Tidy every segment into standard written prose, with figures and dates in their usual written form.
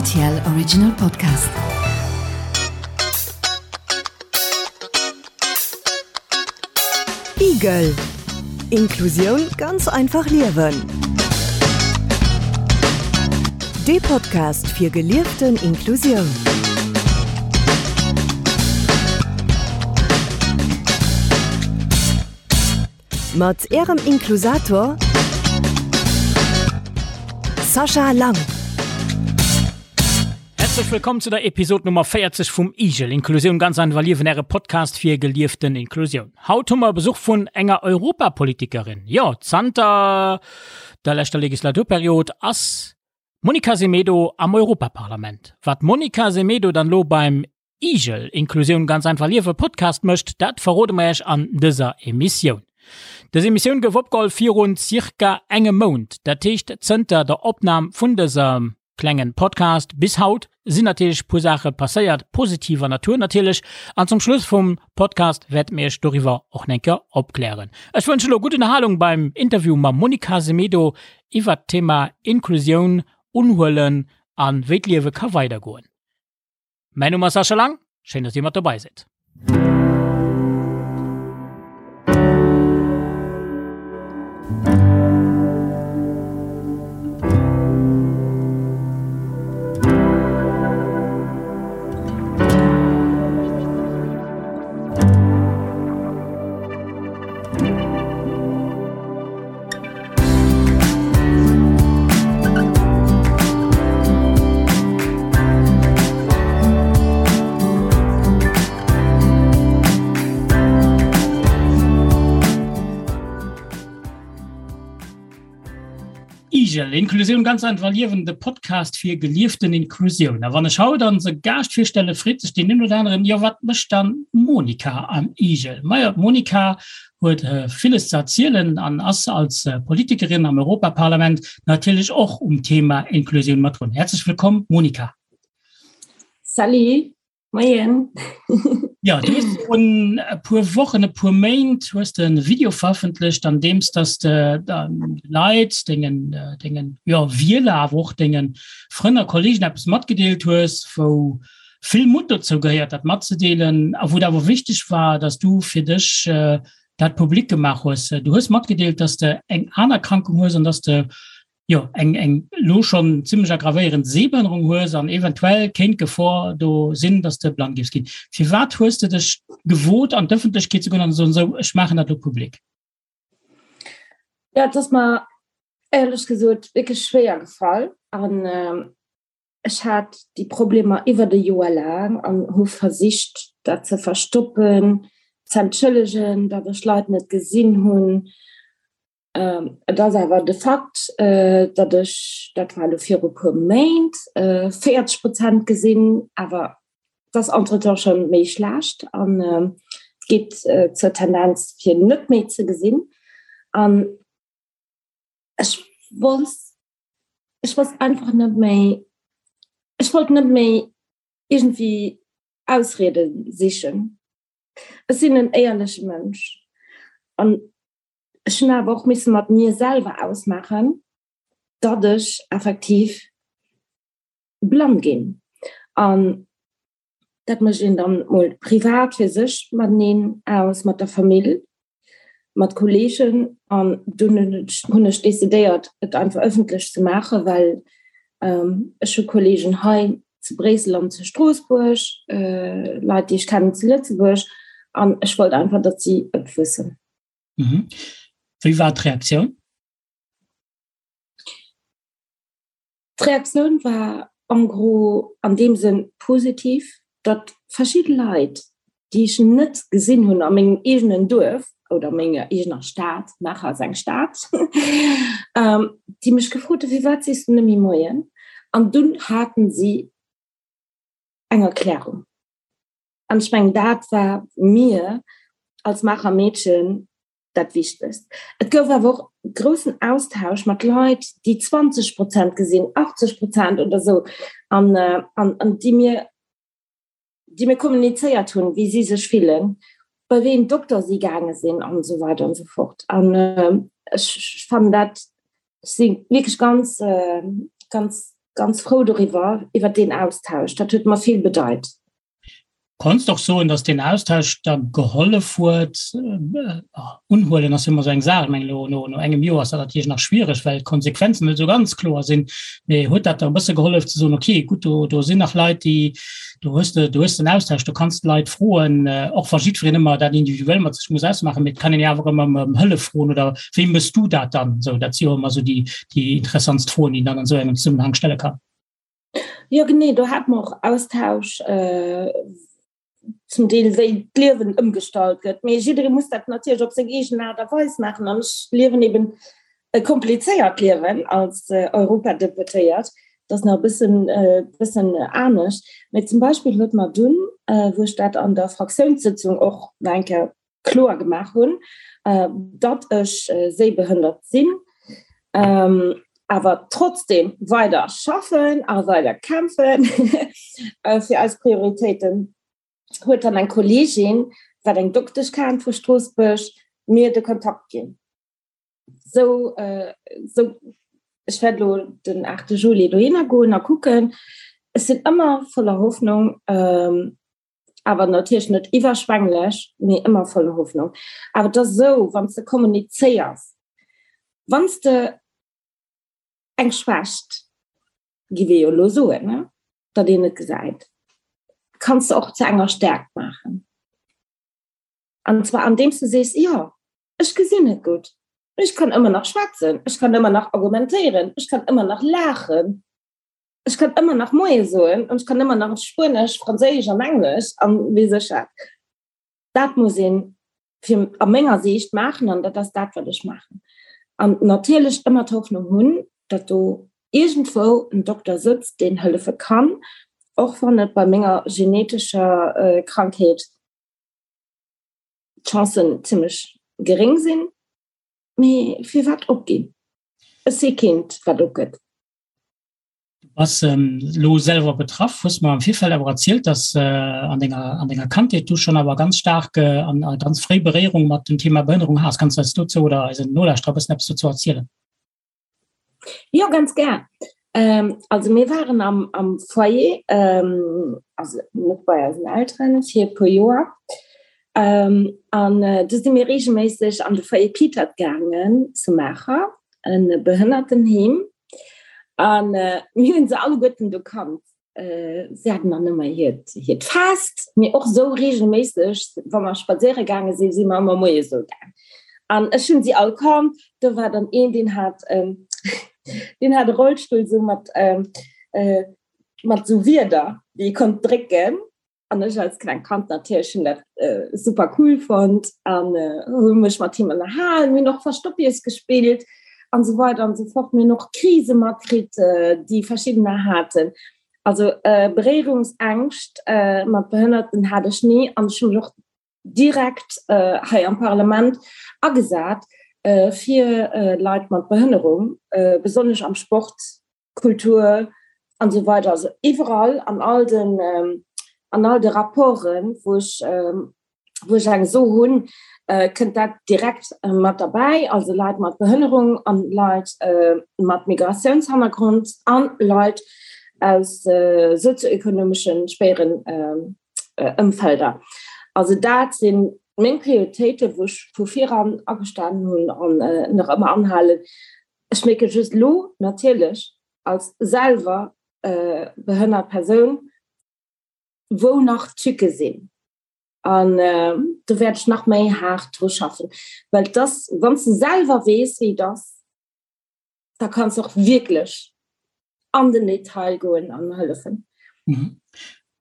RTL Original Podcast. Igel Inklusioun ganz einfach liewen. Dee Podcast fir gelieften Inklusioun. Mat Ärem Inklusator Sascha Lang. Häerzlech wëllkomm zu der Episod Nummer 40 vum IGEL, Inklusioun ganz einfach liewen, äre Podcast fir gelieften Inklusioun. Haut hu mer Besuch vun enger Europapolitikerin. Jo, zanter der leschter Legislaturperiod ass d'Monica Semedo am Europaparlament. Wat d'Monica Semedo dann lo beim Igel, Inklusioun ganz einfach liewen Podcast mécht, dat verrode mer Iech an dëser Emissioun. Dës Emissioun gouf opgeholl virun circa engem Mount, dat heescht zënter der Opnam vun dësem klengen Podcast bis haut sinn natierlech puer Saache passéiert, positiver Natur natierlech, an zum Schluss vum Podcast wäerte mir Iech doriwwer och nenker opklären. Ech wënsche lo gutt Ënnerhalung beim Interview mam Monica Semedo iwwert d'Thema Inklusioun, Unhuelen an wéi d'Liewe ka weidergoen. Mäin Numm ass Sascha Lang, schéin dass dir mat dobei sidd. Igel, Inklusioun ganz einfach liewen, de Podcast fir gelieften Inklusioun. A wann ech haut onse Gaascht virstelle, freet sech deen een oder aneren, jo wat mécht dann d'Monica am Igel? Majo, d'Monica huet villes ze erzielen an ass als Politikerin am Europaparlament natierlech och um Thema Inklusioun mat drun. Häerzlech wëllkomm, Monica. Salut, moien. Jo, du hues virun e puer Wochen, e puer Méint hues de e Video verëffentlecht, an deem s dass de Leit, dengen, dengen, jo, Wieler, awer och denge Frënn a Kollegen eppes matgedeelt hues, wou vill Mutt dozou gehéiert, dat matzedeelen, a wou et awer wichteg war, dass du fir dech dat public gemaach hues. Du hues matgedeelt, dass de eng aner Erkrankung hues an dass de jo eng eng elo schonn zimmlech aggravéierend Sehbehënnerung hues an eventuell kéint d'Gefor do sinn, dass de blann géifs ginn. Firwat hues de dech gewot, an d'Ëffentlechkeet ze goen an ze soen, Sou, ech maachen dat elo public? Jo, et ass mer éierlech gesot wierklech schwéier gefall an Ech hat déi Problemer iwwert e Joer laang an hu versicht, dat ze verstoppen, ze entschëllegen, datt ech Leit net gesinn hunn. Et ass awer de Fakt, datt ech, dat war elo viru puer Méint, 40 Prozent gesinn, awer et ass entretemps scho méi schlecht an et geet zur Tendenz fir net méi ze gesinn. An ech wollt ech wosst einfach net méi, ech wollt net méi iergendwéi Ausriede sichen. Ech sinn en éierleche Mënsch an ech hunn awer och misse mat mir selwer ausmaachen, datt ech effektiv blann ginn. An dat mécht een dann mol privat fir sech mateneen aus, mat der Famill, mat Kolleegen. An dunn hunn ech decidéiert, et einfach ëffentlech ze maachen, well ech hu Kolleegen hei zu Bréissel an zu Stroossbuerg, Leit, déi ech kennen zu Lëtzebuerg, an ech wollt einfach, datt si et wëssen. Wéi war d'Reaktioun? D'Reaktioun war en gros an deem Sënn positiv, datt verschidde Leit, déi ech net gesinn hunn a mengem eegenen Duerf oder a menger eegener Stad, Maacher ass eng Stad, déi mech gefrot hunn, Firwat sees du net méi Moien? An dunn haten si eng Erklärung. An ech mengen, dat war mir als Maacher Meedchen dat Wichtegst. Et gouf awer och groussen Austausch mat Leit, déi 20 Prozent gesinn, 80 Prozent oder esou, an, an, an déi mir, déi mir kommunizéiert hunn, wéi si sech fillen, bei wéi een Dokter si gaange sinn an esou weider an esou fort. An ech fannen dat, ech si wierklech ganz, ganz. ganz frou doriwwer, iwwer deen Austausch. Dat huet mer vill bedeit. Konns de och soen, datt deen Austausch der gehollef huet? Unhuelen ass jo ëmmer esou eng Saach. Ech mengen, elo no engem Joer ass dat natierlech nach schwiereg, well d'Konsequenzen net esou ganz kloer sinn. Mee huet dat der e bësse gehollef ze soen, okay, gutt, do, do sinn nach Leit, déi, do hues de, do hues de en Austausch, do kanns de Leit froen, och wa jiddwereen ëmmer dat individuell mat sech muss ausmaachen, mee et kann een jo awer ëmmer ëm Hëllef froen oder wéi méchs du dat dann? Esou, dat si jo ëmmer esou déi, déi interessantst Froen, déi een dann an esou engem Zesummenhang stelle kann. Jo genee, do hate mer och Austausch zum Deel wéi d'Liewen ëmgestallt gëtt. Mee jidderee muss dat natierlech op seng eegen Aart a Weis maachen an ech liewen eben e komplizéiert Liewen als Europadeputéiert. Dat ass nach e bëssen, bëssen anescht. Mee zum Beispill huet mer dunn, wou ech dat an der Fraktiounssëtzung och nach eng Kéier kloer gemaach hunn, datt ech séibehënnert sinn, awer trotzdem weider schaffen a weider kämpfen fir eis Prioritéiten, huet dann eng Kolleegin, wat eng Doktesch kennt vu Stroossbuerg, mir de Kontakt ginn. Sou, sou ech wäert elo den 8 Juli dohinner goen a kucken. Ech sinn ëmmer voller Hoffnung. Awer natierlech net iwwerschwänglech, mee ëmmer voller Hoffnung. Awer et ass esou, wann s de kommunizéiers, wann s de eng Schwächt, gi mir jo elo soen, ne, datt een et gesäit, kanns de och zu enger Stärkt maachen. An zwar andeems de sees, jo, ech gesinn net gutt, mee ech kann ëmmer nach schwätzen, ech kann ëmmer nach argumentéieren, ech kann ëmmer nach laachen. Ech kann ëmmer nach Moie soen an ech kann ëmmer nach Spuenesch, Franséisch an Englesch an weess ech wat. Dat muss een fir a menger Siicht maachen an dat ass dat, wat ech maachen. An natierlech ëmmer d'Hoffnung hunn, datt do iergendwou en Dokter sëtzt, deen hëllefe kann, och wann et bei menger genetescher Krankheet d'Chancen zimmlech geréng sinn. Mee firwat opginn? Ech si keent, wat opgëtt. Du bass elo selwer betraff, hues mer am Virfeld awer erzielt, dass an denger, an denger Kandheet du schonn awer ganz staark an a ganz fréi Beréierung mat dem Thema Behënnerung has. Kanns du eis dozou oder eisen Nolauschterer e bëssen eppes dozou erzielen? Jo, ganz gär. Also mir waren am, am Foyer, also net bei eisen Elteren, fir e puer Joer. An du si mir reegelméisseg an de Foyer Pietert gaangen zu Maacher, e Behënnertenheem. An mir hunn se alleguerten do kannt. Si haten dann ëmmer hiert, hiert Fest, mee och esou reegelméisseg, wa mer spadséiere gaange sinn, si mer ëmmer moies esou gaang. An ech hunn si all kannt. Do war dann een, deen hat, deen hat e Rollstull esou mat, mat esou Wierder, déi ee konnt drécken. An ech als kleng Kand natierlech hunn dat super cool fonnt an hu mech mat him ënnerhalen. Mir hunn och Verstoppies gespillt an esou weider an esou fort. Mir hunn och Krise matkritt, déi verschiddener haten. Also Beréierungsängscht mat Behënnerten hat ech ni an ech hu mech och direkt hei am Parlament agesat fir Leit mat Behënnerung, besonnesch am Sport Kultur an esou weider, also iwwerall an all den an all de Rapporten, wou ech wou ech eng So hunn, kënnt dat direkt mat derbäi, also Leit mat Behënnerung an Leit mat Migratiounshannergrond an Leit aus sozioekonomeschen schwéieren Ëmfelder. Also dat sinn meng Prioritéiten, wou ech vu viran agestanen hunn an nach ëmmer anhalen. Ech mierke just elo natierlech als selwer behënnert Persoun, wou nach d'Tücke sinn. An do wäert ech nach méi haart dru schaffen, well et ass, wann s de selwer weess, wéi et ass, da kanns de och wierklech an den Detail goen an hëllefen. An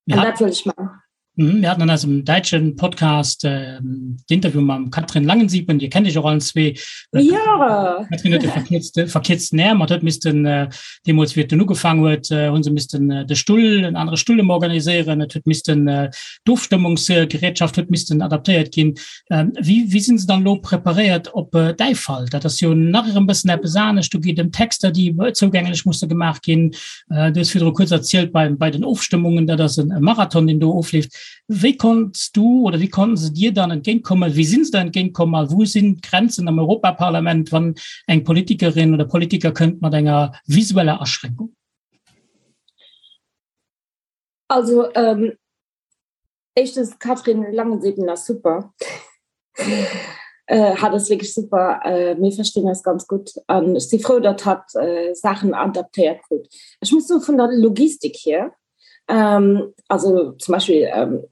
dat wëll ech maachen. Mhm, mir hatten an eisem däitschen Podcast äh, d'Interview mam Katrin Langensiepen, Dir kennt Iech och allen zwee. Äh, ja. Katrin huet de verkierzte, verkierzten Äerm, hat huet missten äh, deemools wéi et dunn ugefaangen huet, äh, hunn se missten äh, de Stull, en anere Stull ëm organiséieren, et huet missten äh, d'Ofstëmmungsgerätschaft huet missten adaptéiert ginn. Ähm, wéi, wéi sinn se dann elo preparéiert op äh, däi Fall? Dat ass jo nach erëm bëssen eppes anescht, do geet ëm Texter, déi zougänglech musse gemaach ginn. Äh, du hues virdru kuerz erzielt bei, bei den Ofstëmmungen, dat ass en Marathon, deen do ofleeft. Wéi konnts du oder wéi konnten se dir dann entgéintkommen? Wéi sinn se der entgéintkomm a wou sinn d'Grenzen am Europaparlament, wann eng Politikerin oder Politiker kënnt mat enger visueller Aschränkung? Also ähm, éischtens d'Catherine Langensiepen ass super. Äh, hat ass wierklech super. Äh, mir verstinn eis ganz gutt an ech si frou, datt hatt äh, Saachen adaptéiert krut. Ech muss soe vun der Logistik hier, ähm, also zum Beispill ähm,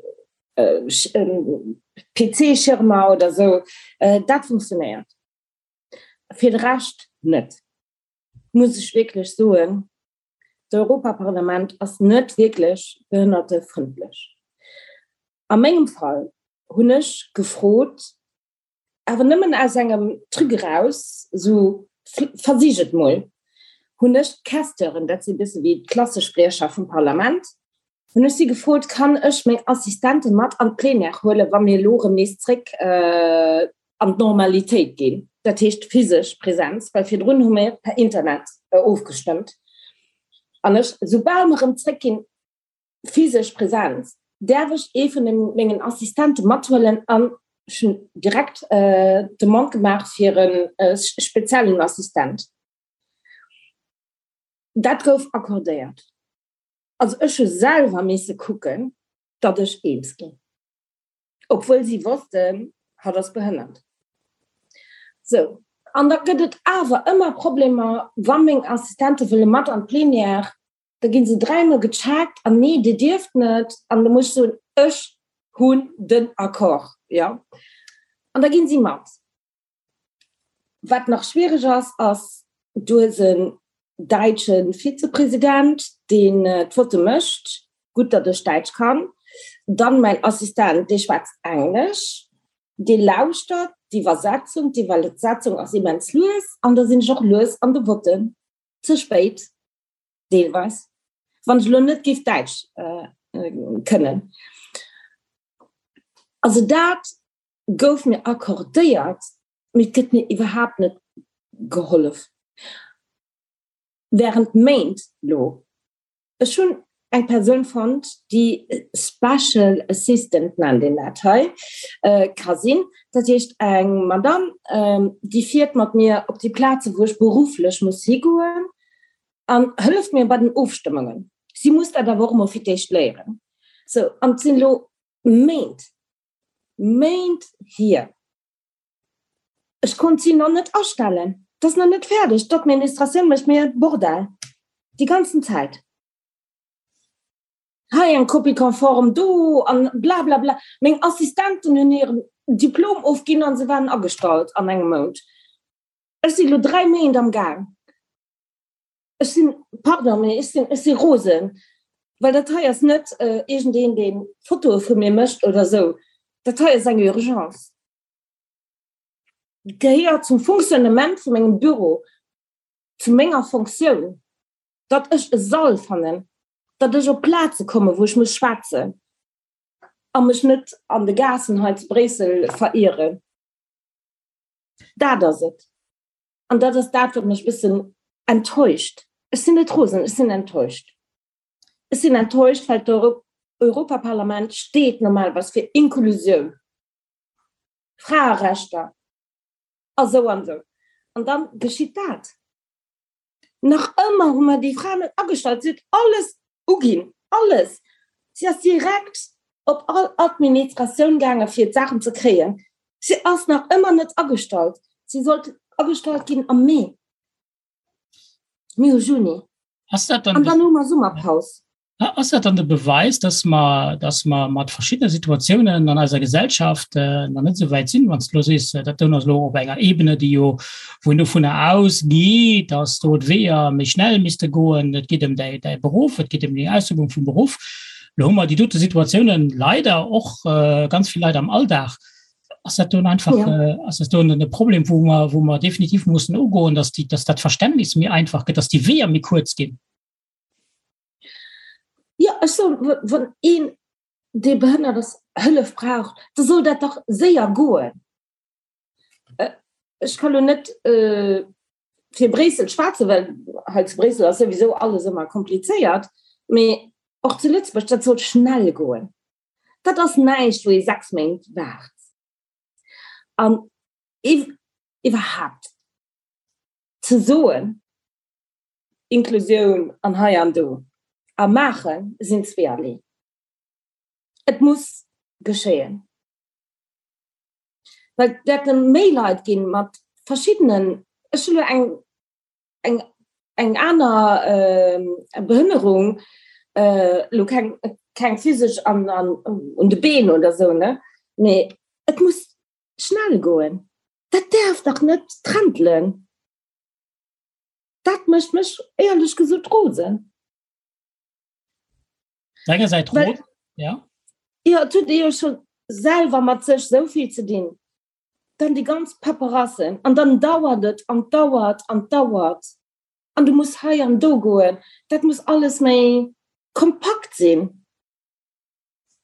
äh, ähm, PC-Schirmer oder sou, äh, dat funktionéiert. Fir de Rescht net, muss ech wierklech soen. D'Europaparlament ass net wierklech behënnertefrëndlech. A mengem Fall hunn ech gefrot, awer nëmmen aus engem Truc eraus, esou versich et mol, hunn ech d'Questeuren, dat si bësse wéi d'Klassespriecher vum Parlament, hunn ech si gefrot, kann ech meng Assistente mat an d'Plénière huelen, wa mir elo erëm nees zréck an d'Normalitéit ginn, dat heescht physesch Präsenz, well virdrun hu mir per Internet ofgestëmmt. An ech, soubal mer erëm zréckginn, physesch Präsenz, däerf ech ee vun mengen Assistente mathuelen an ech hunn direkt d'Demande gemaach fir e speziellen Assistent. Dat gouf accordéiert. Also ech hu selwer misse kucken, datt ech eens ginn, obwuel si wossten, hatt ass behënnert. Sou, an da gëtt et awer ëmmer Problemer, wa meng Assistente wëlle mat an d'Plenière, da gi se dräimol gecheckt an nee, dir dierft net. An da muss ech soen, ech hunn den Accord, jo. An da ginn si mat. Wat nach schwiereg ass, ass, du hues en däitsche Vizepresident, deen d'Votte mécht, gutt, datt ech Däitsch kann, dann mäin Assistent, dee schwätzt Englesch, dee lauschtert d'Iwwersetzung, d'Iwwersetzung ass immens lues an da sinn ech och lues an de Votten, ze spéit deelweis, wann ech elo net géif Däitsch kënnen. Also dat gouf mir accordéiert, mee et gëtt mir iwwerhaapt net gehollef. Während Méint lo. Ech hunn eng Persoun fonnt, déi Special Assistant nennt een dat hei, ka sinn. Dat heescht eng Madame, déi fiert mat mir op déi Plaze wou ech berufflech muss higoen an hëlleft mir bei den Ofstëmmungen. Si muss dat awer och emol fir d'éischt léieren. Sou, an et sinn elo Méint, Méint hier. Ech konnt si nach net astellen. Et ass nach net fäerdeg. D'Administratioun mécht mir e Bordell déi ganzen Zäit. Hei eng Copie conforme, do an blablabla. Meng Assistenten hunn hiren Diplom ofginn a se waren agestallt an engem Mount. Ech si lo 3 Méint am Gaang. Ech sinn, pardon, mee ech sinn, ech si rosen, well dat hei ass net iergendeen, dee Fotoe vu mir mécht oder esou. Dat hei ass eng Urgence. Gehéiert zum Fonctionnement vu mengem Büro, zu menger Fonctioun, datt ech e Sall fannen, datt ech op Plaze kommen, wou ech muss schwätzen a mech net an de Gaassen hei zu Bréissel verieren. Dat ass et. An dat ass dat, wat mech e bëssen enttäuscht. Ech sinn net rosen, ech sinn enttäuscht. Ech sinn enttäuscht, well d'Europaparlament steet normalerweis fir Inklusioun, Fraerechter a sou an sou. An dann geschitt dat. Nach ëmmer hu mer déi Fra net agestallt. Si huet alles uginn, alles. Si ass direkt op all Administratioun gaange fir d'Saachen ze kréien. Si ass nach ëmmer net agestallt. Si sollt agestallt ginn am Mee. Mir hu Juni. Ass dat dann An dann hu mer Summerpaus. Ass dat dann de Beweis, dass mer, dass mer mat verschiddene Situatiounen an eiser Gesellschaft nach net esou wäit sinn, wann s de elo sees, dat do ass elo op enger Ebene, déi jo, wou een dovunner ausgeet, dass do d'Weeër méi schnell misste goen, et geet ëm däi, däi Beruff, et geet ëm déi Ausübung vum Beruff. Elo hu mer déi dote Situatiounen leider och ganz vill Leit am Alldag. Ass dat do einfach, ass dat do e Problem, wou mer, wou mer definitiv mussen ugoen, dass déi, dass dat Verständnis méi einfach gëtt, dass déi Weeër méi kuerz ginn? Jo, ech soen, wann een, dee behënnert ass, Hëllef brauch, da soll dat dach séier goen. Ech ka lo net fir Bréissel schwätzen, well hei zu Bréissel ass souwisou alles ëmmer komplizéiert, mee och zu Lëtzebuerg, dat soll schnell goen. Dat ass näischt, wou ee 6 Méint waart. An iwwerhaapt ze soen, Inklusioun an hei an do a maache sinn zweeërlee. Et muss geschéien. Well et wäerte méi Leit ginn mat verschiddenen, ech hunn elo eng, eng, eng aner Behënnerung, elo keng, keng physesch an, an un de Been oder esou, ne, mee et muss schnell goen. Dat däerf dach net trentelen. Dat mécht mech éierlech gesot rosen. Engersäits rot, ja. Jo, et huet ee jo scho selwer mat sech esou vill ze dinn. Dann déi ganz Paperassen an dann dauert et an dauert an dauert an du muss hei an do goen. Dat muss alles méi kompakt sinn.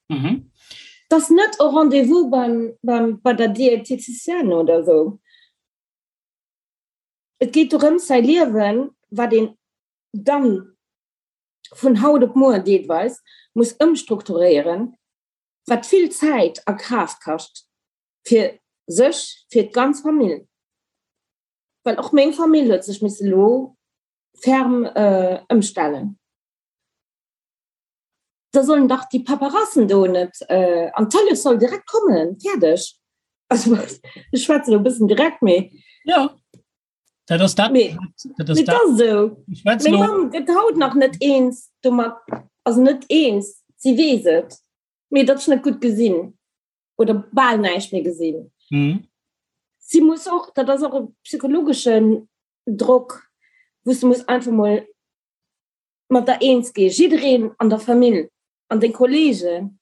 Mhm. Dass net e Rendez-vous beim, beim, bei der Diététicienne oder esou. Et geet dorëms, säi Liewen, wat een dann vun haut op muer deelweis muss ëmstrukturéieren, wat vill Zäit a Kraaft kascht, fir sech, fir d'ganz Famill, well och meng Famill huet sech misse lo ferm ëmstellen. Da sollen dach déi Paperassen do net, an d'Hëllef soll direkt kommen, fäerdeg. Also ech schwätzen elo e bëssen direkt, mee. Jo. Dat ass dat. Mee, dat ass dat. Ass esou. Meng Mamm gëtt haut nach net eens domat, also net eens, si weess et, mee datt ech net gutt gesinn oder bal näischt méi gesinn. Mhm. Si muss och, dat ass och e psychologeschen Drock, wou s de muss einfach mol mat der eens ginn, jiddereen an der Famill an deng Kollegen.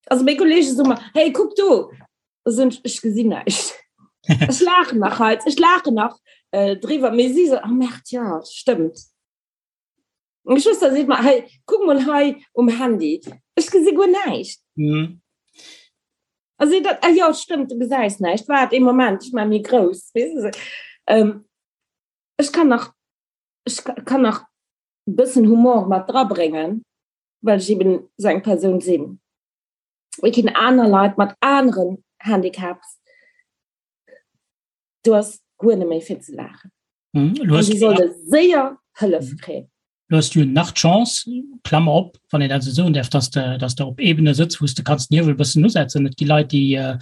Also meng Kollege soe mer, hey, kuck do! Da soen ech, ech gesinn näischt. Ech laachen nach hei, ech laachen nach äh, driwwer, mee si so, oh Merd, ja, stëmmt. Meng Schwëster seet mer, hey, kuck mol hei um Handy, ech gesi guer näischt. Mhm. A si dat, ah jo, stëmmt, du gesäis näischt, waart ee Moment, ech maache méi grouss, weess de. Ähm, ech kann nach, ech kann nach e bëssen Humor mat drabréngen. well ech eben sou eng Persoun sinn. Et ginn aner Leit mat aneren Handicaps, do ass guer net méi fir ze laachen. Mhm. Du hast, solle séier Hëllef mhm. kréien. Du hast jo nach d'Chance, Klammer op, wann een dat esou soen däerf, dass de, dass de op Ebene sëtz, wou s de kanns den Hiewel e bëssen usetzen. Et gi Leit, déi, äh,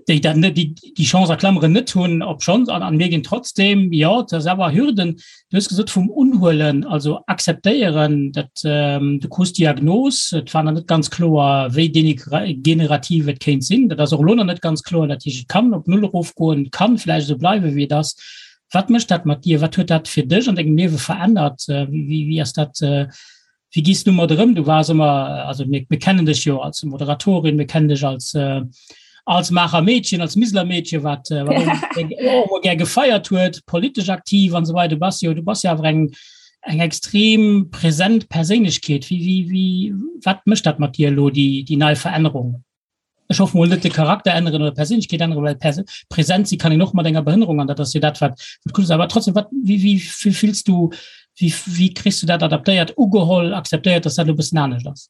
déi dat net, déi déi Chance a Klammeren net hunn, obschonn, an, an mir ginn trotzdem, jo, et ass awer Hürden, du hues gesot vum Unhuelen, also akzeptéieren, dat ähm, du krus d'Diagnos, et war nach net ganz kloer, wéi degenerativ et kéint sinn, dat ass och elo nach net ganz kloer, dat heescht, et kann op Null erofgoen, et kann vläicht esou bleiwe wéi et ass. Wat mécht dat mat dir? Wat huet dat fir dech an dengem Liewe verännert? Wéi, wéi, wéi ass dat, äh, Wéi gees du mat erëm? Du waars ëmmer, also mir, mir kennen dech jo als Moderatorin, mir kennen dech als, äh, als Maacher Meedchen, als Miseler Meedchen, wat, äh, wat och ëmmer gär gefeiert huet, politesch aktiv an esou weider. Du bass jo, du bass jo awer eng, eng extrem präsent Perséinlechkeet. Wéi, wéi, wéi, wat mécht dat mat dir elo, déi, déi nei Verännerung? Ech hoffen mol net de Charakter änneren oder Perséinlechkeet änneren, well Pers präsent si kann een och mat enger Behënnerung an dat ass jo dat wat wat cool ass. Awer trotzdem, wat wéi wéi wéi fills du, wéi wéi kriss du dat adaptéiert, ugeholl, akzeptéiert, dass dat elo e bëssen anescht ass?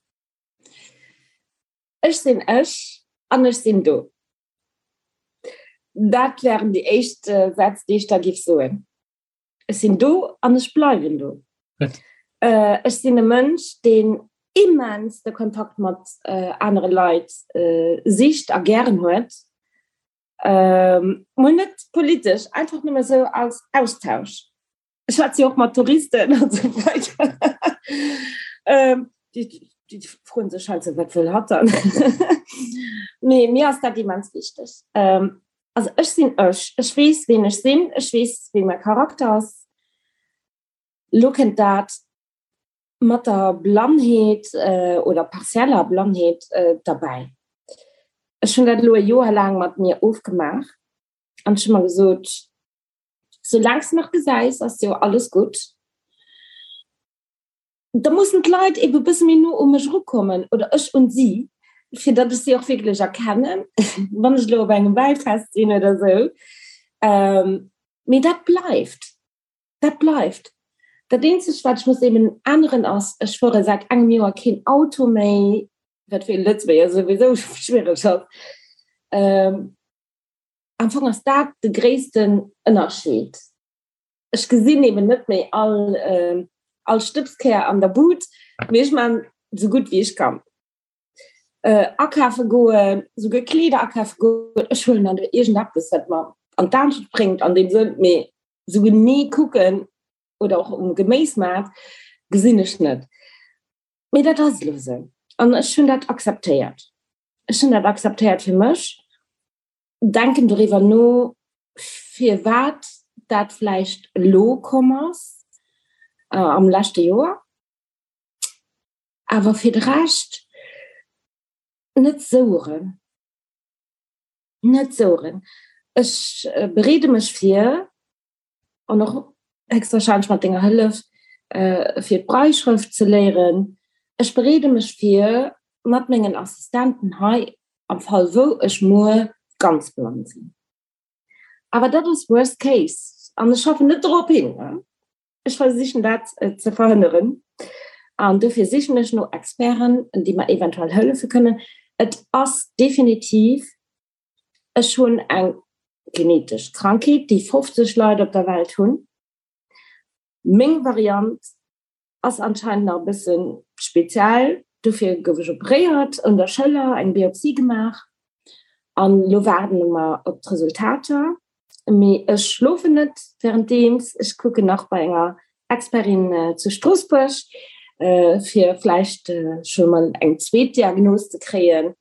Ech sinn ech an ech sinn do. Dat wären déi éischt Sätz, déi ech da giff soen. Ech sinn do an ech bleiwen do. Ech sinn e Mënsch, deen immens de Kontakt mat anere Leit sicht a gären huet. Mol net politesch, einfach nëmme sou als Austausch. Ech schwätze jo och mat Touristen an esou weider. Déi froen sech halt sou, wat wëll hatt dann? Mee mir ass dat immens wichteg. Also ech sinn ech, ech weess ween ech sinn, ech weess wéi mäi Charakter ass. Lo kënnt dat mat der Blannheet oder partieller Blannheet derbäi. Ech hunn dat elo e Joer laang mat mir ofgemaach an ech hu mer gesot, soulaang s de nach gesäis, ass jo alles gutt. Da mussen d'Leit ebe e bësse méi no u mech erukommen oder ech un si, fir datt ech si och wierklech erkennen, wann ech elo op engem Wäifest sinn oder esou. Mee dat bleift, dat bleift. Dat eenzegt, wat ech muss eben änneren, ass, ech fuere säit engem Joer keen Auto méi, wat fir e Lëtzebuerger souwisou schwiereg ass. Am Fong ass dat de gréissten Ënnerscheed. Ech gesinn eben net méi all all Stëbskär an der Bud, mee ech man sou gutt wéi ech kann. Akafe goen, souguer Kleeder akafe goen, ech huelen dann do iergendeppes, wat mer an d'Aarbecht bréngt an deem Sënn, mee sou genee kucken oder och um Geméismaart gesinn ech net. Mee dat ass elo esou an ech hunn dat akzeptéiert. Ech hunn dat akzeptéiert fir mech, denken doriwwer no, firwat dat vläicht elo komm ass am leschte Joer. Awer fir de Rescht net soueren. Net soueren. Ech bereede mech vir, an och héchstwahrscheinlech mat denger Hëllef, fir d'Brailleschrëft ze léieren. Ech bereede mech vir mat mengen Assistenten hei, am Fall wou ech muer ganz blann sinn. Awer dat ass worst case an ech schaffen net dorop hin. Ech versichen dat ze verhënneren an dofir sichen ech no Experten, déi mer eventuell hëllefe kënnen. Et ass definitiv, ech hunn eng genetesch Krankheet, déi 50 Leit op der Welt hunn. Meng Variant ass anscheinend nach e bësse speziell, dofir gouf ech operéiert un der Schëller, eng Biopsie gemaach an elo waarde mer op d'Resultater. Mee ech schlofen net wärenddeems. Ech kucken nach bei enger Expertin zu Stroossbuerg, fir vläicht scho mol eng zweet Diagnos ze kréien.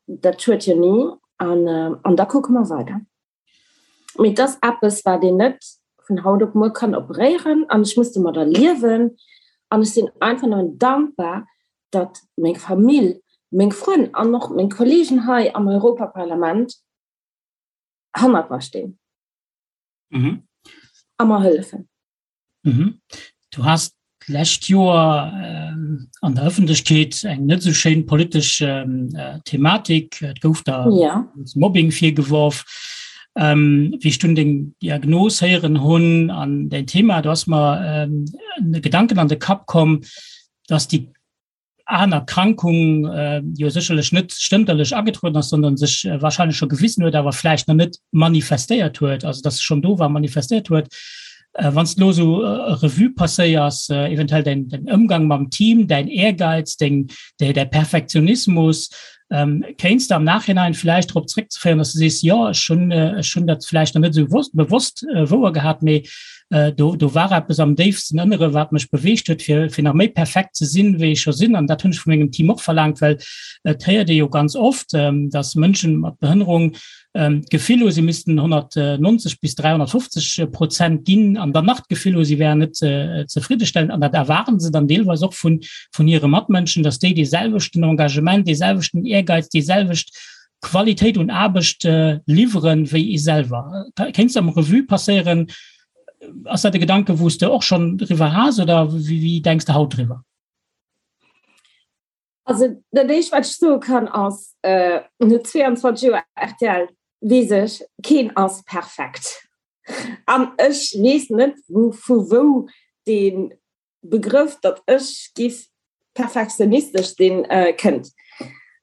Dat schued jo ni. An da kucke mer weider. Mee et ass eppes, wat een net vun haut op muer kann operéieren. An ech muss domadder liewen. An ech sinn einfach nëmmen dankbar, datt meng Famill, meng Frënn an och meng Kolleegen hei am Europaparlament hannert mer stinn mhm. a mer hëllefen. Mhm. Du hast d'lescht Joer ähm, an der Ëffentlechkeet eng net so schéin politesch ähm, äh, Thematik. Et gouf da ja. Mobbing virgeworf. Ähm, wéi ech dunn deng Diagnos héieren hunn an dein Thema, du hast mer ähm, Gedanken an de Kapp komm, dass déi aner Erkrankung jo sécherlech net stënterlech agetrueden ass, sondern sech wahrscheinlech scho gewisen huet, awer vläicht nach net manifestéiert huet, also dass se schonn do war, manifestéiert huet. Wann s de elo esou Revue passéiers, eventuell däin Ëmgang mam Team, däin Ehrgeiz, deng, däi Perfektionismus, kéints de am Nachhinein vläicht drop zréckzeféieren, dass de sees, jo, ech hunn, ech hunn dat vläicht nach net esou bewosst wouer gehat, mee do, do war eppes am déifsten Ënnere, wat mech beweegt huet, fir, fir nach méi perfekt ze sinn, wéi ech scho sinn. An dat hunn ech vu mengem Team och verlaangt, well et héiert ee jo ganz oft, dass Mënschen mat Behënnerung d'Gefill hu, si missten 190 bis 350 Prozent ginn an dann nach d'Gefill hu, si wären net zefriddestellend. An dat erwaarden se dann deelweis och vun, vun hire Matmënschen, dass déi dee selwechten Engagement, dee selwechten Ehrgeiz, déi selwecht Qualitéit un Aarbecht liwweren, wéi ee selwer. Kéints de am Revue passéieren? Ass dat e Gedanke, wou s de och schonn driwwer has oder wéi denks de haut driwwer? Also dat éischt wat ech soe kann ass, no 22 Joer rtl weess ech, keen ass perfekt. An ech weess net wou vu wou dee Begrëff, datt ech giff perfektionistesch sinn, kënnt.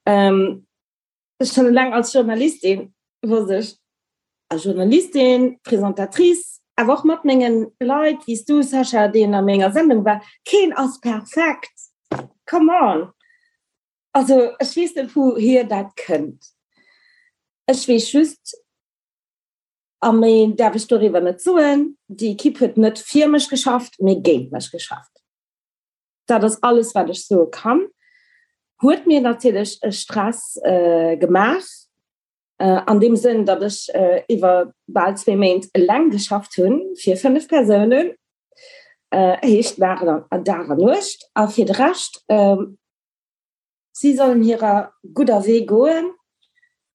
Ech schonn eleng als Journalistin wosst ech, als Journalistin, Présentatrice, awer och mat mengen Leit wéi s du Sascha, deen a menger Sendung war, keen ass perfekt, come on! Also ech weess net wouhier dat kënnt. Ech weess just, a méi däerf ech doriwwer net soen, déi Equipe huet net fir mech geschafft, mee géint mech geschafft. Dat ass alles wat ech soe kann. Huet mir natierlech e Stress gemaach, an deem Sënn, datt ech iwwer bal zwee Méint eleng geschafft hunn fir 5 Persounen, heescht Dag an Dag an Nuecht. A fir de Rescht, si sollen hirer gudder Wee goen.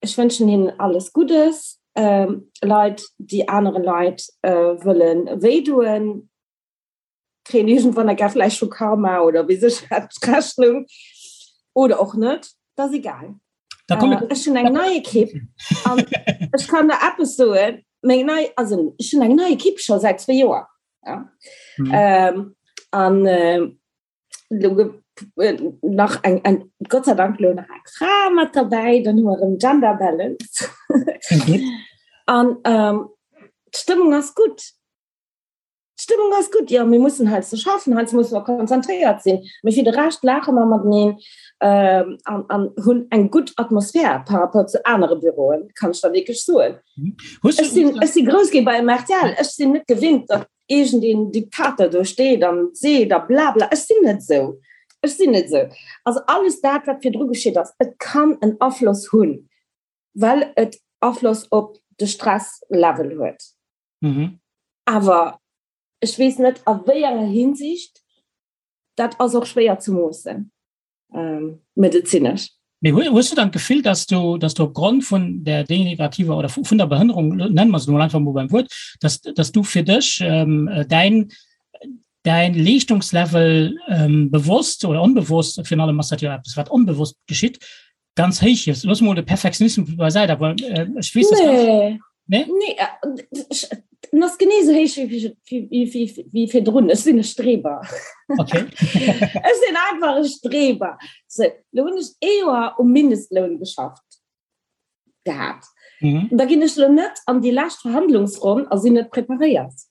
Ech wënschen hinnen alles Guddes. Leit, déi anere Leit wëlle wéidoen, kréien iergendwann eng Kéier vläicht vu Karma oder wéi sech wat d'Rechnung oder och net, dat ass egal. Da komm ich, Ech hunn eng nei Ekipp an ech kann der eppes soen, meng nei, also ech hunn eng nei Ekipp scho säit zwee Joer. Ja. Mhm. Ähm, an äh, lo ge- äh, nach eng, eng, Gott sei Dank lo nach eng Fra mat dabei, dann hu mer erëm Gender Balance. Gut. An ähm, d'Stëmmung ass gutt. D'Stëmmung ass gutt, jo, mir mussen heiansdo schaffen, heiansdo musse mer konzentréiert sinn, mee fir de Rescht laache mer mateneen. ähm, an, an hunn eng gutt Atmosphär par rapport zu anere Büroen, kann ech der wierklech soen. Mhm. Hues du, Ech sinn, ech si grouss gi bei MRTL, ech sinn net gewinnt, datt iergendeen Diktator do steet an seet a blabla. Ech sinn net esou. Ech sinn net esou. Also alles dat, wat virdru geschitt ass, et kann en Afloss hunn, well et Afloss op de Stresslevel huet. Mhm. Awer ech weess net a wéi enger Hinsicht, dat ass och schwéier ze moossen, ähm, medezinesch. Mee hues du dann d'Gefill, dass du, dass du opgrond vun der degenerativer oder vun der Behënnerung, nennen mer se mol einfach mol beim Wuert, dass, dass du fir dech ähm, däin, däin Leeschtungslevel ähm, bewosst oder onbewosst, virun allem ass dat jo eppes, wat onbewosst geschitt, ganz héich hiefs? Looss mol de Perfektionismus beisäit, awer äh, ech weess, dass ganz, Nee. Nee? Nee, äh, en ass genee esou héich wéi, wéi, wéi, wéi, wéi virdrun. Ech sinn e Streber. Okay. Ech sinn einfach e Streber. So, lo hunn ech ee Joer um Mindestloun geschafft gehat. Mhm. Da ginn ech lo net an déi lescht Verhandlungsronn a sinn net preparéiert.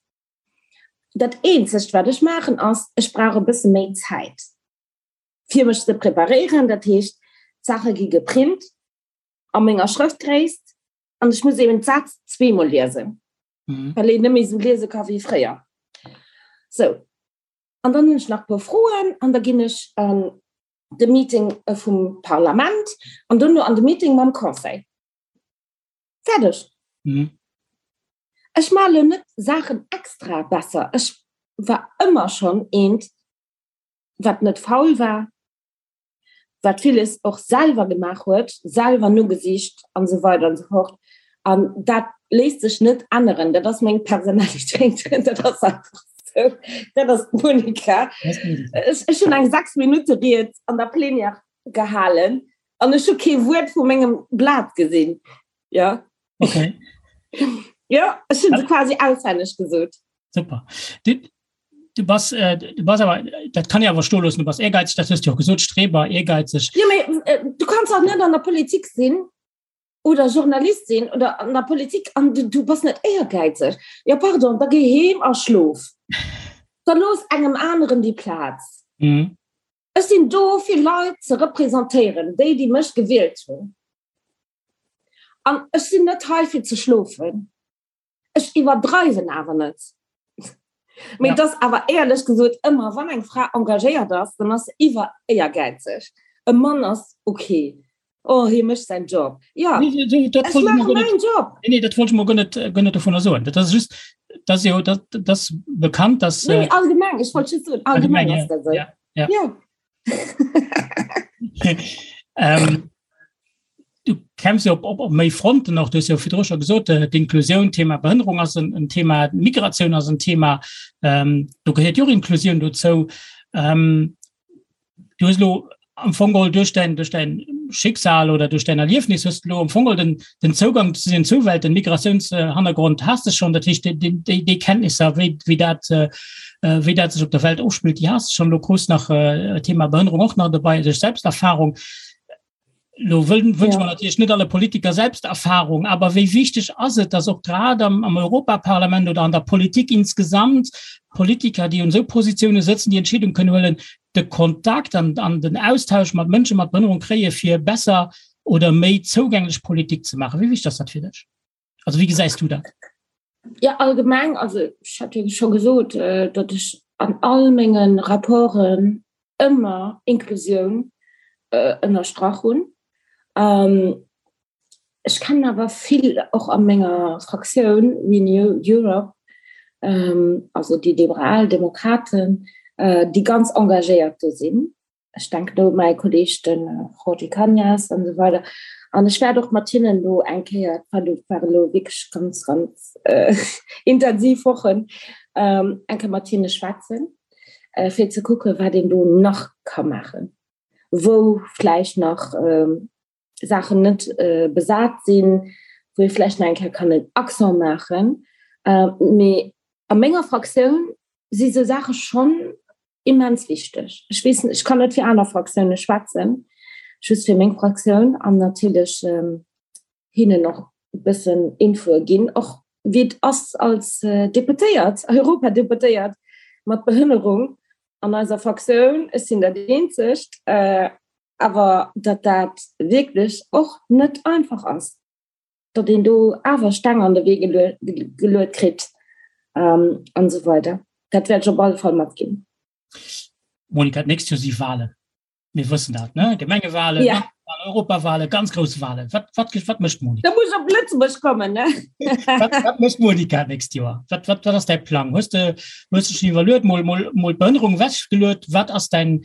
Dat eenzegt, wat ech maachen, ass, ech brauch e bësse méi Zäit, fir mech ze preparéieren. Dat heescht, d'Saache gi geprint a menger Schrëftgréisst an ech muss eben d'Sätz zweemol liesen, mhm. well een net méi sou liese ka wéi fréier. So an dann hunn ech nach puer Froen an da ginn ech an de Meeting äh, vum Parlament an duerno an de Meeting mam Conseil. Fäerdeg. Mhm. Ech male net Saachen extra besser. Ech war ëmmer schonn eent, wat net faul war, wat villes och selwer gemaach huet, selwer nogesicht an esou weider an esou fort. An dat léisst sech net änneren. Dat ass meng Personalitéit. Dat ass einfach esou. Dat ass d'Monica. Ech, ech hunn eng 6 Minutte Ried an der Plenière gehalen an ech hu kee Wuert vu mengem Blat gesinn. Ja. Okay. Ja, ech hunn se quasi auswenneg gesot. Super. Du, du bass, äh, du bass awer, dat kann ich awer stoe loossen, du bass ehrgeizeg, dat hues du och gesot, Streber, ehrgeizeg. Jo, mee äh, du kanns och net an der Politik sinn oder Journalist sinn oder an der Politik an du, du bass net éiergäizeg. Ja, pardon, da géi heem a schlof. Da looss engem aneren déi Plaz. Mhm. Ech sinn do fir Leit ze representéieren, déi, déi mech gewielt hunn. An ech sinn net hei fir ze schlofen. Ech iwwerdreiwen awer net. Mee et ass awer éierlech gesot ëmmer, wann eng Fra engagéiert ass, dann ass se iwwer éiergäizeg. E Mann ass ok, oh hie mécht säin Job. Jo, ech maache mäin Job. Nee, nee, dat wollt ech mol guer net, guer net dovunner soen. Dat ass just, dat ass jo, dat, dat ass bekannt, dass. Nee, allgemeng, ech wollt just soen, allgemeng ass dat esou. Ja, ja. Jo. ähm, du kämpfst jo op, op, op méi Fronten och, du hues jo virdru scho gesot, äh, d'Inklusioun, Thema Behënnerung ass en, en Thema, Migratioun ass en Thema, ähm, do gehéiert jo och Inklusioun dozou. Ähm, du hues lo am Fong geholl duerch däin, duerch däin Schicksal oder duerch däin Erliefnis hues du lo am Fong geholl den, den Zougang zu den Zuwelt, den Migratiounshannergrond has de schonn, dat heescht déi, déi, déi Kenntnisser, wéi, wéi dat, äh, wéi dat sech op der Welt ofspillt, déi has de schonn. Lo krus nach äh, Thema Behënnerung och nach dobei duerch Selbsterfahrung. Lo wëll, wënsche mer natierlech net alle Politiker Selbsterfahrung, awer wéi wichteg ass et, dass och grad am, am Europaparlament oder an der Politik insgesamt Politiker, déi un esou Positioune sëtzen, déi Entscheedung kënnen huelen, de Kontakt an, an den Austausch mat Mënsche mat Behënnerung kréie fir besser oder méi zougänglech Politik ze maachen. Wéi wichteg ass dat fir dech? Also wéi gesäis du dat? Ja, allgemeng, also ech hat jo scho gesot, äh, datt ech an all mengen Rapporten ëmmer Inklusioun äh, ënnerstrach hunn. Ähm, ech kennen awer vill och a menger Fraktioun Renew Europe, ähm, also déi liberal Demokraten, äh, déi ganz engagéiert do sinn. Ech denken do u mäi Kolleeg, de Jorge Cañas an esou weider. An ech wäert och mat hinnen elo eng Kéier, et waren elo wierklech ganz, ganz intensiv Wochen, eng Kéier mat hinne schwätzen, fir ze kucken, wat een do nach ka maachen, wou vläicht nach Saachen net besat sinn, wou ee vläicht nach eng Kéier kann en Accent maachen. Mee a menger Fraktioun si sou Saache schonn immens wichteg. Ech weess, ech kann net fir aner Fraktioune schwätzen, just fir meng Fraktioun an natierlech hinnen och e bëssen Infoe ginn, och wéi et ass als Deputéiert, Europadeputéiert mat Behënnerung an eiser Fraktioun. Ech sinn dat eenzegt. Awer datt dat wierklech och net einfach ass, datt een do awer Steng an de Wee geluet kritt an esou weider. Dat wäert ech op alle Fall matginn. Monika, d'nächst Joer si Walen. Mir wëssen dat, ne? Gemengewalen, ja. Europawalen, ganz grouss Walen. Wat, wat, wat mécht Monika? Da muss op Lëtzebuerg kommen, ne? wat, wat mécht Monika d'nächst Joer? Wat, wat, wat ass däi Plang? Hues de, hues de schon iwwerluet, mol, mol, mol d'Behënnerung wechgeluet? Wat ass däin,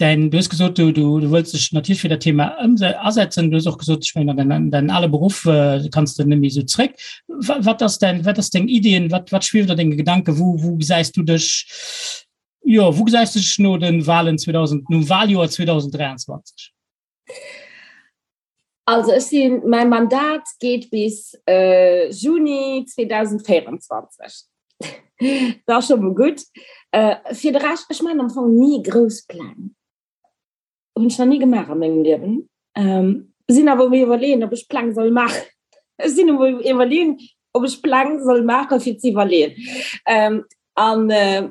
däin, du hues gesot, du, du, du wëlls dech natierlech fir dat Thema ëmse asetzen. Du hues och gesot, ech mengen, an däin, däin ale Beruff äh, kanns de net méi esou zréck. Wat, wat ass däin, wat ass deng Ideen? Wat, wat schwieft a denge Gedanken? Wou, wou gesäis du dech? Jo, wou gesäis du dech no den Wahlen 2000, nom Wahljoer 2023? Also ech sinn, mäi Mandat geet bis äh, Juni 2024. Dat ass scho mol gutt. Äh, fir de Rescht, ech maachen am Fong ni grouss Pläng. Hunn ech nach ni gemaach a mengem Liewen. Ähm, sinn awer um iwwerleeën, ob ech Pläng soll maachen. Ech sinn um iwwerleeën, ob ech Pläng soll maachen, fir ze iwwerleeën. Ähm, an äh,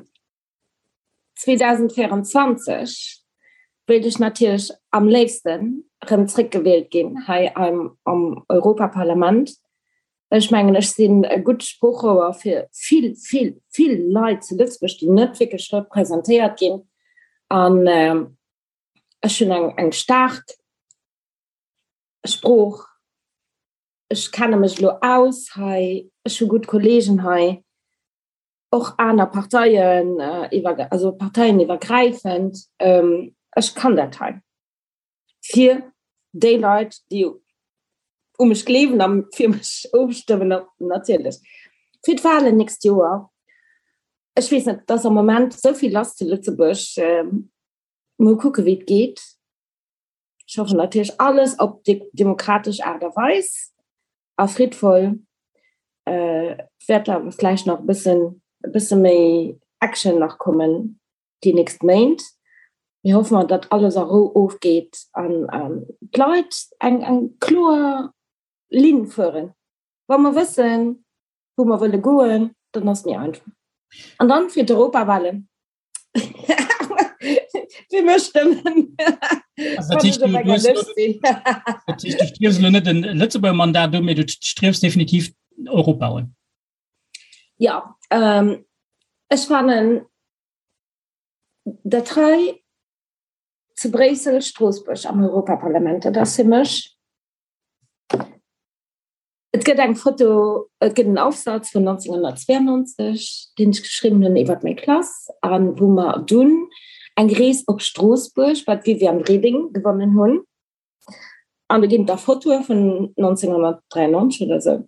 2024 wéilt ech natierlech am léifsten erëm zréckgewielt ginn hei am, am Europaparlament. Ech mengen, ech sinn e gutt Sproochrouer fir vill, vill, vill Leit zu Lëtzebuerg, déi net wierklech representéiert ginn. An ech hunn eng, eng staark Sprooch. Ech kenne mech elo aus hei. Ech hu gutt Kolleegen hei, och aner Parteien, iwwer, also parteieniwwergräifend. Ech kann dat hei. Fir déi Leit, déi u mech gleewen a fir mech ofstëmmen, natierlech. Fir d'Wahlen nächst Joer, ech weess net, et ass am Moment esou vill lass zu Lëtzebuerg, mol kucke wéi et geet. Ech hoffen natierlech alles op demokratesch Aart a Weis a friddvoll. Et wäert awer vläicht nach e bëssen, e bësse méi Action nach kommen. déi nächst Méint. Mir hoffe mer, datt alles a Rou ofgeet an d'Leit eng eng kloer Linn fueren. Wa mer wëssen, wou mer wëlle goen, dann ass et méi einfach. An dann fir d'Europawahlen fir mech stëmmen. Also dat heescht, du, du, dat heescht, du striefs elo net en Lëtzebuerger Mandat un, mee du striefs definitiv Europa un. Ja, ähm, ech fannen dat hei zu Bréissel, Stroossbuerg am Europaparlament, dat ass fir mech, et gëtt eng Foto, et gëtt en Aufsatz vun 1992, deen ech geschriwwen hunn iwwer meng Klass an wou mer dunn eng Rees op Stroossbuerg bei d'Viviane Reding gewonnen hunn. An do ginn et da Fotoe vun 1993 oder esou.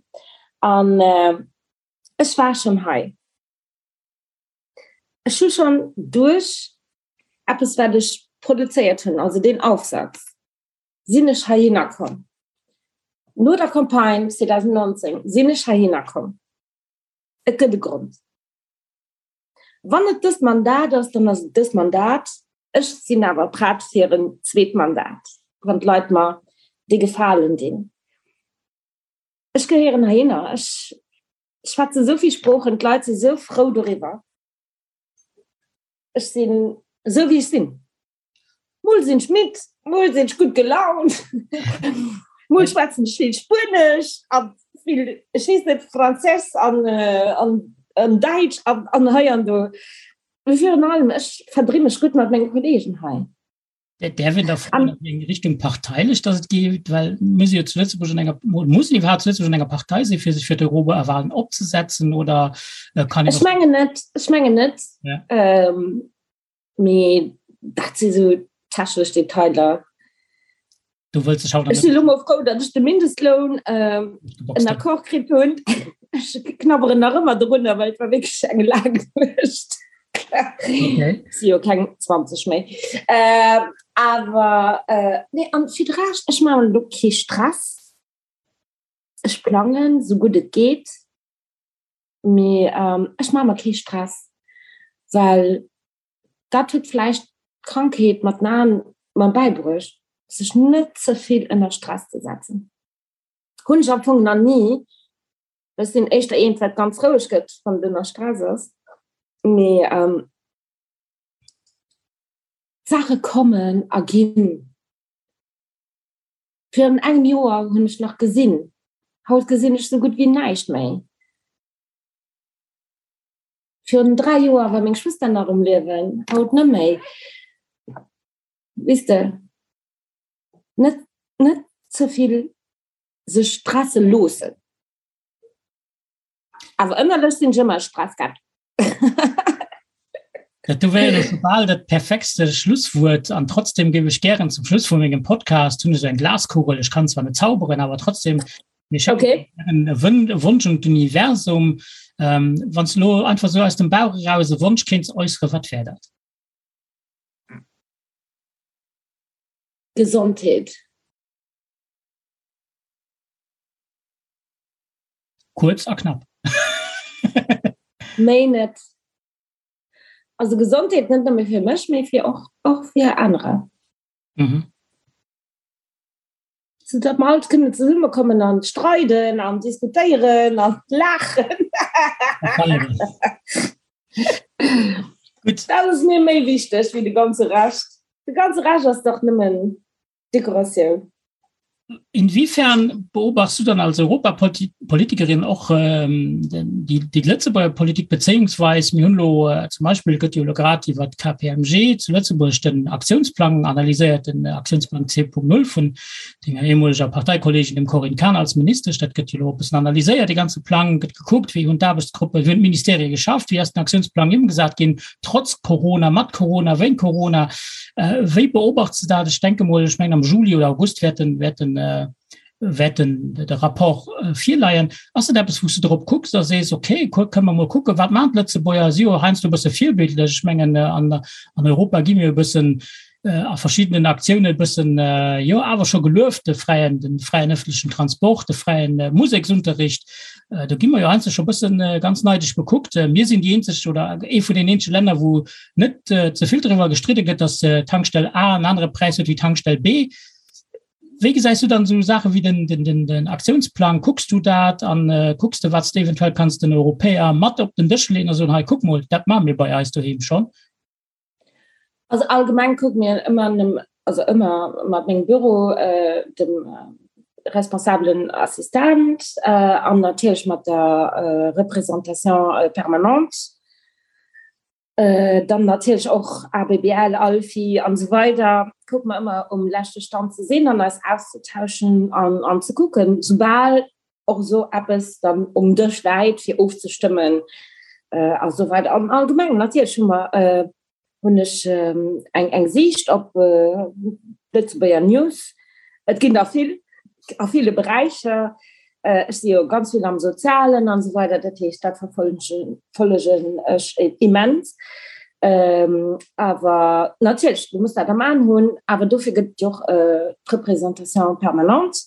An ech war schonn hei. Ech hu schonn duerch eppes, wat ech produzéiert hunn, also deen Aufsatz, sinn ech heihinner komm. No der Campagne 2019 sinn ech heihinner komm. Et gëtt e Grond. Wann et dëst Mandat ass, dann ass et dëst Mandat. Ech sinn awer prett fir en zweet Mandat, wann d'Leit mer dee Gefalen dinn. Ech gehéieren heihinner. Ech schwätze esou vill Sproochen, d'Leit si sou frou doriwwer. Ech sinn esou wéi ech sinn. Mol sinn ech midd, mol sinn ech gutt gelaunt, mol schwätzen ech vill Spuenesch a vill, ech weess net, Franséisch an an an Däitsch an an hei an do. Mee virun allem, ech verdri mech gutt mat menge Kolleegen hei. Däerf een da froen, an wéi eng Richtung parteilech dass et geet? Well mir si jo zu Lëtzebuerg an enger, muss een iwwerhaapt zu Lëtzebuerg an enger Partei sinn, fir sech fir d'Europawahlen opzesetzen oder kann een och. Ech mengen net, ech mengen net. Ja. Ähm, mee dat si sou technesch Detailer. Du wëlls dech haut Ech sinn elo mol frou, datt ech de Mindestloun ähm, en Accord kritt hunn. Ech knabberen nach ëmmer drunner, well et war wierklech eng laang Nuecht. Okay. Si jo keng 20 méi. Äh, awer äh, nee, an fir de Rescht, ech maachen elo kee Stress. Ech plangen, sou gutt et geet. Mee ähm, ech maache mer kee Stress, well dat huet vläicht d'Krankheet mat den Aen mer bäibruecht, sech net ze vill ënner Stress ze setzen. Hunn ech am Fong nach ni. Ech sinn éischter eent, wat ganz roueg gëtt, wann et ënner Stress ass. Mee ähm, d'Saache kommen a ginn. Virun engem Joer hunn ech nach gesinn, haut gesinn ech sou gutt wéi näischt méi. Virun 3 Joer war meng Schwëster nach um Liewen, haut net méi. Weess de, net, net ze vill sech stresse loossen. Awer ënnerlech sinn ech ëmmer e Stresskäpp. Dat do wär jo scho bal dat perfektste Schlusswuert. An trotzdem géif ech gären zum Schluss vu mengem Podcast, hunn ech esou eng Glaskugel, ech kann zwar net zauberen, awer trotzdem, mir schécken okay. e Wonsch un d'Universum. Ähm, Wann du lo einfach so aus dem Bauch eraus e Wonsch kéints äussere, wat wär dat? Gesondheet. Kuerz a knapp. Méi net. Also Gesondheet net nëmme fir mech, mee fir och, och fir anerer. Mhm. So datt mer alt kënnen zesummekommen an streiden an diskutéieren an laachen. Gutt. Dat ass mir méi wichteg wéi de ganze Rescht. De ganze Rescht ass dach nëmmen Dekoratioun. Inwiefern beobachtst du dann als Europapolitikerin och ähm, déi, déi Lëtzebuerger Politik bezéiungsweis mir hunn lo äh, zum Beispill gëtt jo lo grad iwwer d'KPMG zu Lëtzebuerg den Aktiounsplang analyséiert, den Aktiounsplang 2.0 vun denger ehemoliger Parteikollegin dem Corinne Cahen als Ministesch. Dat gëtt jo lo e bëssen analyséiert, dee ganze Plang gëtt gekuckt, wéi hunn d'Aarbechtsgruppen, wéi hunn d'Ministerie geschafft, wéi ass den Aktiounsplang ëmgesat ginn, trotz Corona, mat Corona, wéint Corona. Äh, wéi beobachts du dat? Ech denke mol, ech mengen am Juli oder August wäert den, wäert den, äh, wäert den, de Rapport äh, virleien. Ass dat eppes, wou s du drop kucks a sees, okay, kënne mer mol kucken, wat maachen d'Lëtzebuerger? Si jo heiansdo e bësse virbildlech. Ech mengen, äh, an, an Europa gi mir e bëssen a verschiddenen Aktiounen e bëssen, jo awer scho gelueft, de fräien, de fräien ëffentlechen Transport, de fräien Museksunterricht. Do gi mer jo heiansdo scho e bëssen ganz neideg bekuckt. Mir sinn déi eenzeg oder ee vun den eenzege Länner, wou net ze vill driwwer gestridde gëtt, datt d'Tankstell A en anere Präis huet wéi d'Tankstell B. Wéi gesäis du dann esou Saache wéi den, den, den, den Aktiounsplang? Kucks du dat an kucks de, wat s de eventuell kanns den Europäer mat op den Dësch leeën a soen, hei kuck mol, dat maache mir bei eis doheem schonn? Also allgemeng kucke mir ëmmer, also ëmmer mat mengem Büro, dem responsabelen Assistent an natierlech mat der Représentation permanente, dann natierlech och ABBL, ALFI an esou weider, kucke mer ëmmer um leschte Stand ze sinn an eis auszutauschen an ze kucken, soubal och esou eppes dann um Dësch läit fir ofzestëmmen a sou weider. An allgemeng natierlech hu mer, hunn ech eng eng Siicht op d'Lëtzebuerger News. Et ginn der vill a ville Beräicher. Ech si jo ganz vill am Sozialen an esou weider, dat heescht dat verfollegen ech immens. Awer natierlech, du muss dat am Aen hunn, awer dofir gëtt et jo och d'Représentation permanente.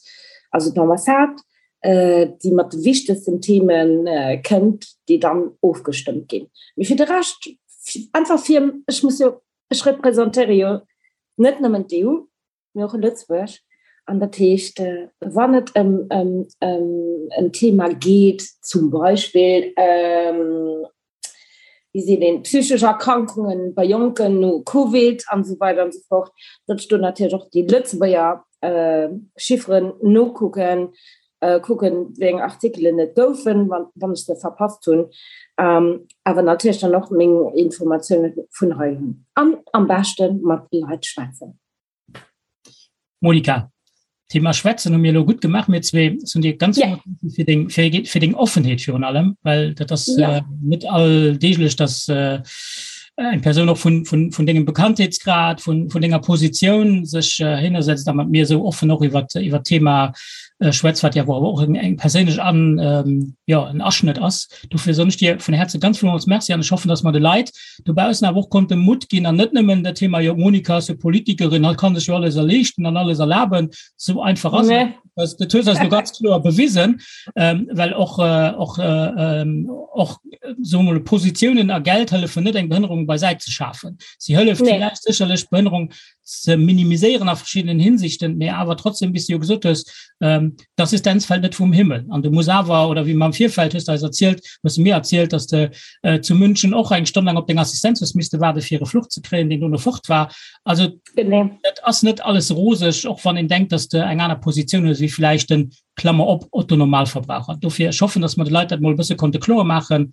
also d'Ambassade, déi mat de wichtegsten Theme kënnt, déi dann ofgestëmmt ginn. Mee fir de Rescht, einfach fir, ech muss jo, ech representéiere jo net nëmmen d'EU, mee och Lëtzebuerg. An dat heescht, wann et ëm en Thema geet, zum Beispill, wéi seet een, psychesch Erkrankungen bei Jonken no Covid an esou weider an esou fort, datt ech do natierlech och déi Lëtzebuerger Chifferen nokucken, kucken, wéi eng Artikelen et goufen, wann ech se verpasst hunn, awer natierlech dann och meng Informatioune vun hei hunn an am beschte mat Leit schwätzen. Monika, Thema Schwätzen hu mir elo gutt gemaach, mir zwee. Ech soen dir ganz ja. fir deng, fir, fir deng Offenheet virun allem, well dat ass ja. äh, net alldeeglech, dass äh, eng Persoun och vun, vun, vun dengem Bekanntheetsgrad, vun, vun denger Positioun sech äh, hinnersetzt a mat mir esou offen och iwwer iwwer Thema äh, schwätzt, wat ja awer och eng, eng perséinlech an ähm, ja, en Aschnëtt ass. Dofir soen ech dir vun Herze ganz villmools Merci an ech hoffen, dass mer de Leit dobaussen awer och konnte Mutt ginn an net nëmmen dat Thema, jo d'Monika ass jo Politikerin, hatt kann sech jo alles erleeschten an alles erlaben. Esou einfach ass et net. Dat hues eis lo ganz kloer bewisen, ähm, well och, äh, och, äh, ähm, och soe mol Positiounen a Geld hëllefen net eng Behënnerung beisäit ze schafen. Si hëlleft nee. villäicht sécherlech d'Behënnerung ze minimiséieren a verschiddenen Hinsichten, mee awer trotzdem, wéi s du jo gesot hues, ähm, d'Assistenz fält net vum Himmel. An du muss awer, oder wéi mer am Virfeld hues de eis erzielt, hues de mir erzielt, dass de äh, zu München och eng Stonn laang op deng Assistenz hues misste waarde fir e Fluch ze kréien, deen dono fort war. Also et ass net alles roseg, och wann een denkt, dass de eng aner Positioun hues wéi villäicht den, Klammer op, Otto Normalverbraucher. Dofir, ech hoffen, dass mer de Leit dat mol e bësse konnte kloer maachen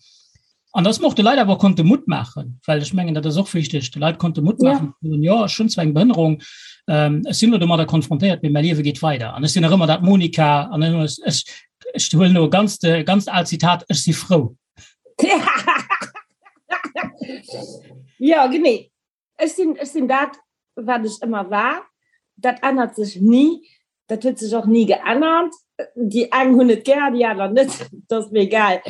an dass mer och de Leit awer konnte Mutt maachen, well ech mengen, dat ass och wichteg, de Leit konnte Mutt maachen, ze soen, jo, ech hunn zwar eng Behënnerung, ech sinn elo domadder konfrontéiert, mee mäi Liewe geet weider an ech sinn nach ëmmer dat Monika an ech, ech huelen elo e ganzt, e ganzt aalt Zitat, ech si frou. Jo, genee. Ech sinn, ech sinn dat, wat ech ëmmer war. Dat ännert sech ni. Dat huet sech och ni geännert. Déi eng hunn et gär, déi aner net. Dat ass mir egal.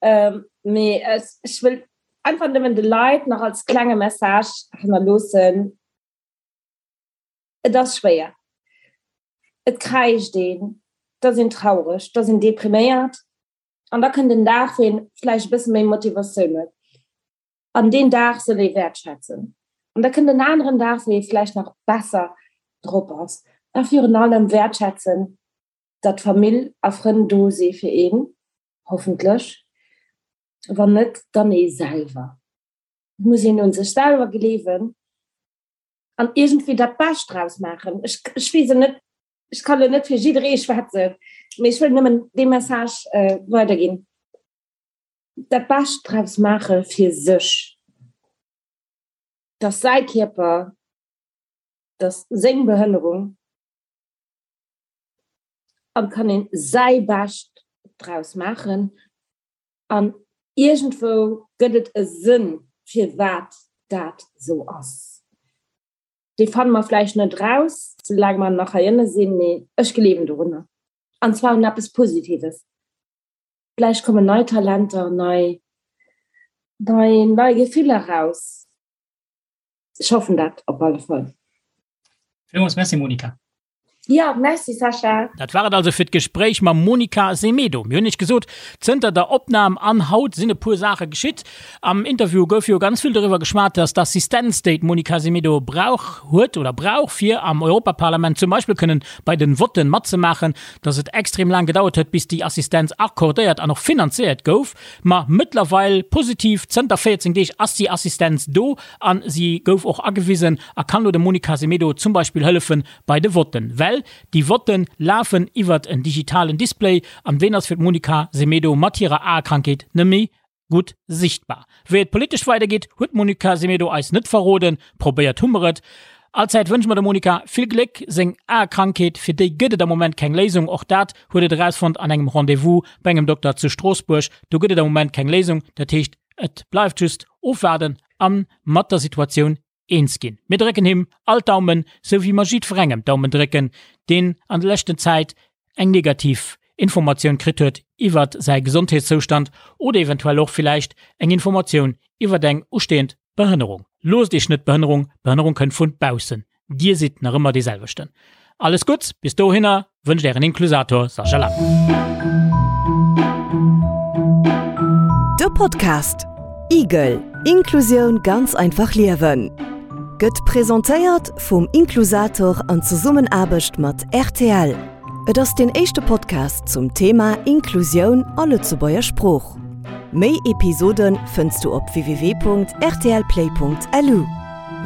Ähm, mee ech, ech wëll einfach nëmmen de Leit nach als klenge Message hannerloossen, Et ass schwéier. Et kräischt een, et ass een traureg, et ass een depriméiert. An da kënnt en Dag, wou een vläicht e bësse méi Motivatioun huet. An deen Dag soll ee wäertschätzen. An da kënnt en aneren Dag, wou ee vläicht nach besser drop ass. A virun allem wäertschätzen, datt Famill a Frënn do si fir een, hoffentlech. Wann net, dann ee selwer. Et muss een un sech selwer gleewen an iergendwéi dat Bescht draus maachen. Ech, ech weess et net, ech kann elo net fir jidderee schwätzen, mee ech wëll nëmmen dee Message weiderginn. dat Bescht draus maache fir sech, dass säi Kierper, dass seng Behënnerung, an kann een säi Bescht draus maachen an iergendwou gëtt et e Sënn firwat dat esou ass. Dee fanne mer vläicht net raus, soulaang mer nach heiënne sinn, mee ech gleewen dorunner an zwar un eppes Positives. Vläicht kommen nei Talenter, nei, nei, nei Gefiller raus. Ech hoffen dat op alle Fall. Villmools Merci Monika. Ja, merci Sascha. Dat war et also fir d'Gespréich mam Monica Semedo. Mir hunn iech gesot, zënter der Opnam an haut sinn e puer Saache geschitt. Am Interview gouf jo ganz vill doriwwer geschwat, dass d'Assistenz, déi d'Monica Semedo brauch huet oder brauch, fir am Europaparlament zum Beispill kënnen bei den Votten matzemaachen, dass et extrem laang gedauert huet, bis déi Assistenz accordéiert an och finanziéiert gouf. Ma mëttlerweil, positiv, zënter 14 Deeg ass déi Assistenz do a si gouf och agewisen a kann elo dem Monica Semedo zum Beispill hëllefe bei de Votten. Well déi Votte lafen iwwert en digitalen Display an deen ass fir d'Monica Semedo mat hirer Aekrankheet net méi gutt sichtbar. Wéi et politesch weidergeet, huet d'Monica Semedo eis net verroden. Probéiert hu mer et. Allzäit wënsche mer dem Monica vill Gléck. Seng Aekrankheet, fir déi gëtt et am Moment keng Léisung. Och dat huet et erausfonnt an engem Rendez-vous bei engem Dokter zu Stroossbuerg. Do gëtt et am Moment keng Léisung. Dat heescht, et bleift just ofwaarden a mat der Situatioun eens ginn. Mir drécken him all d'Daumen, sou wéi mer jiddwerengem d'Daumen drécken, deen an der leschten Zäit eng negativ Informatioun kritt huet iwwert säi Gesondheetszoustand oder eventuell och villäicht eng Informatioun iwwert eng ustehend Behënnerung. Loosst Iech net Behënnerung, Behënnerung kënnt vun baussen. Dir sidd nach ëmmer dee selwechten. Alles Gutts bis dohinner wënscht Ären Inklusator Sascha Lang. De Podcast Igel, Inklusioun ganz einfach liewen gëtt presentéiert vum Inklusator an Zesummenaarbecht mat rtl. Et ass deen éischte Podcast zum Thema Inklusioun a Lëtzebuerger Sprooch. Méi Episode fënns du op www.rtlplay.lu.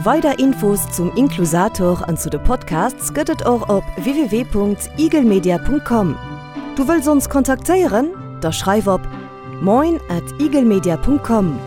Weider Infos zum Inklusator an zu de Podcasts gëtt et och op www.igelmedia.com. Du wëlls ons kontaktéieren? Da schreif op moin at igelmedia.com.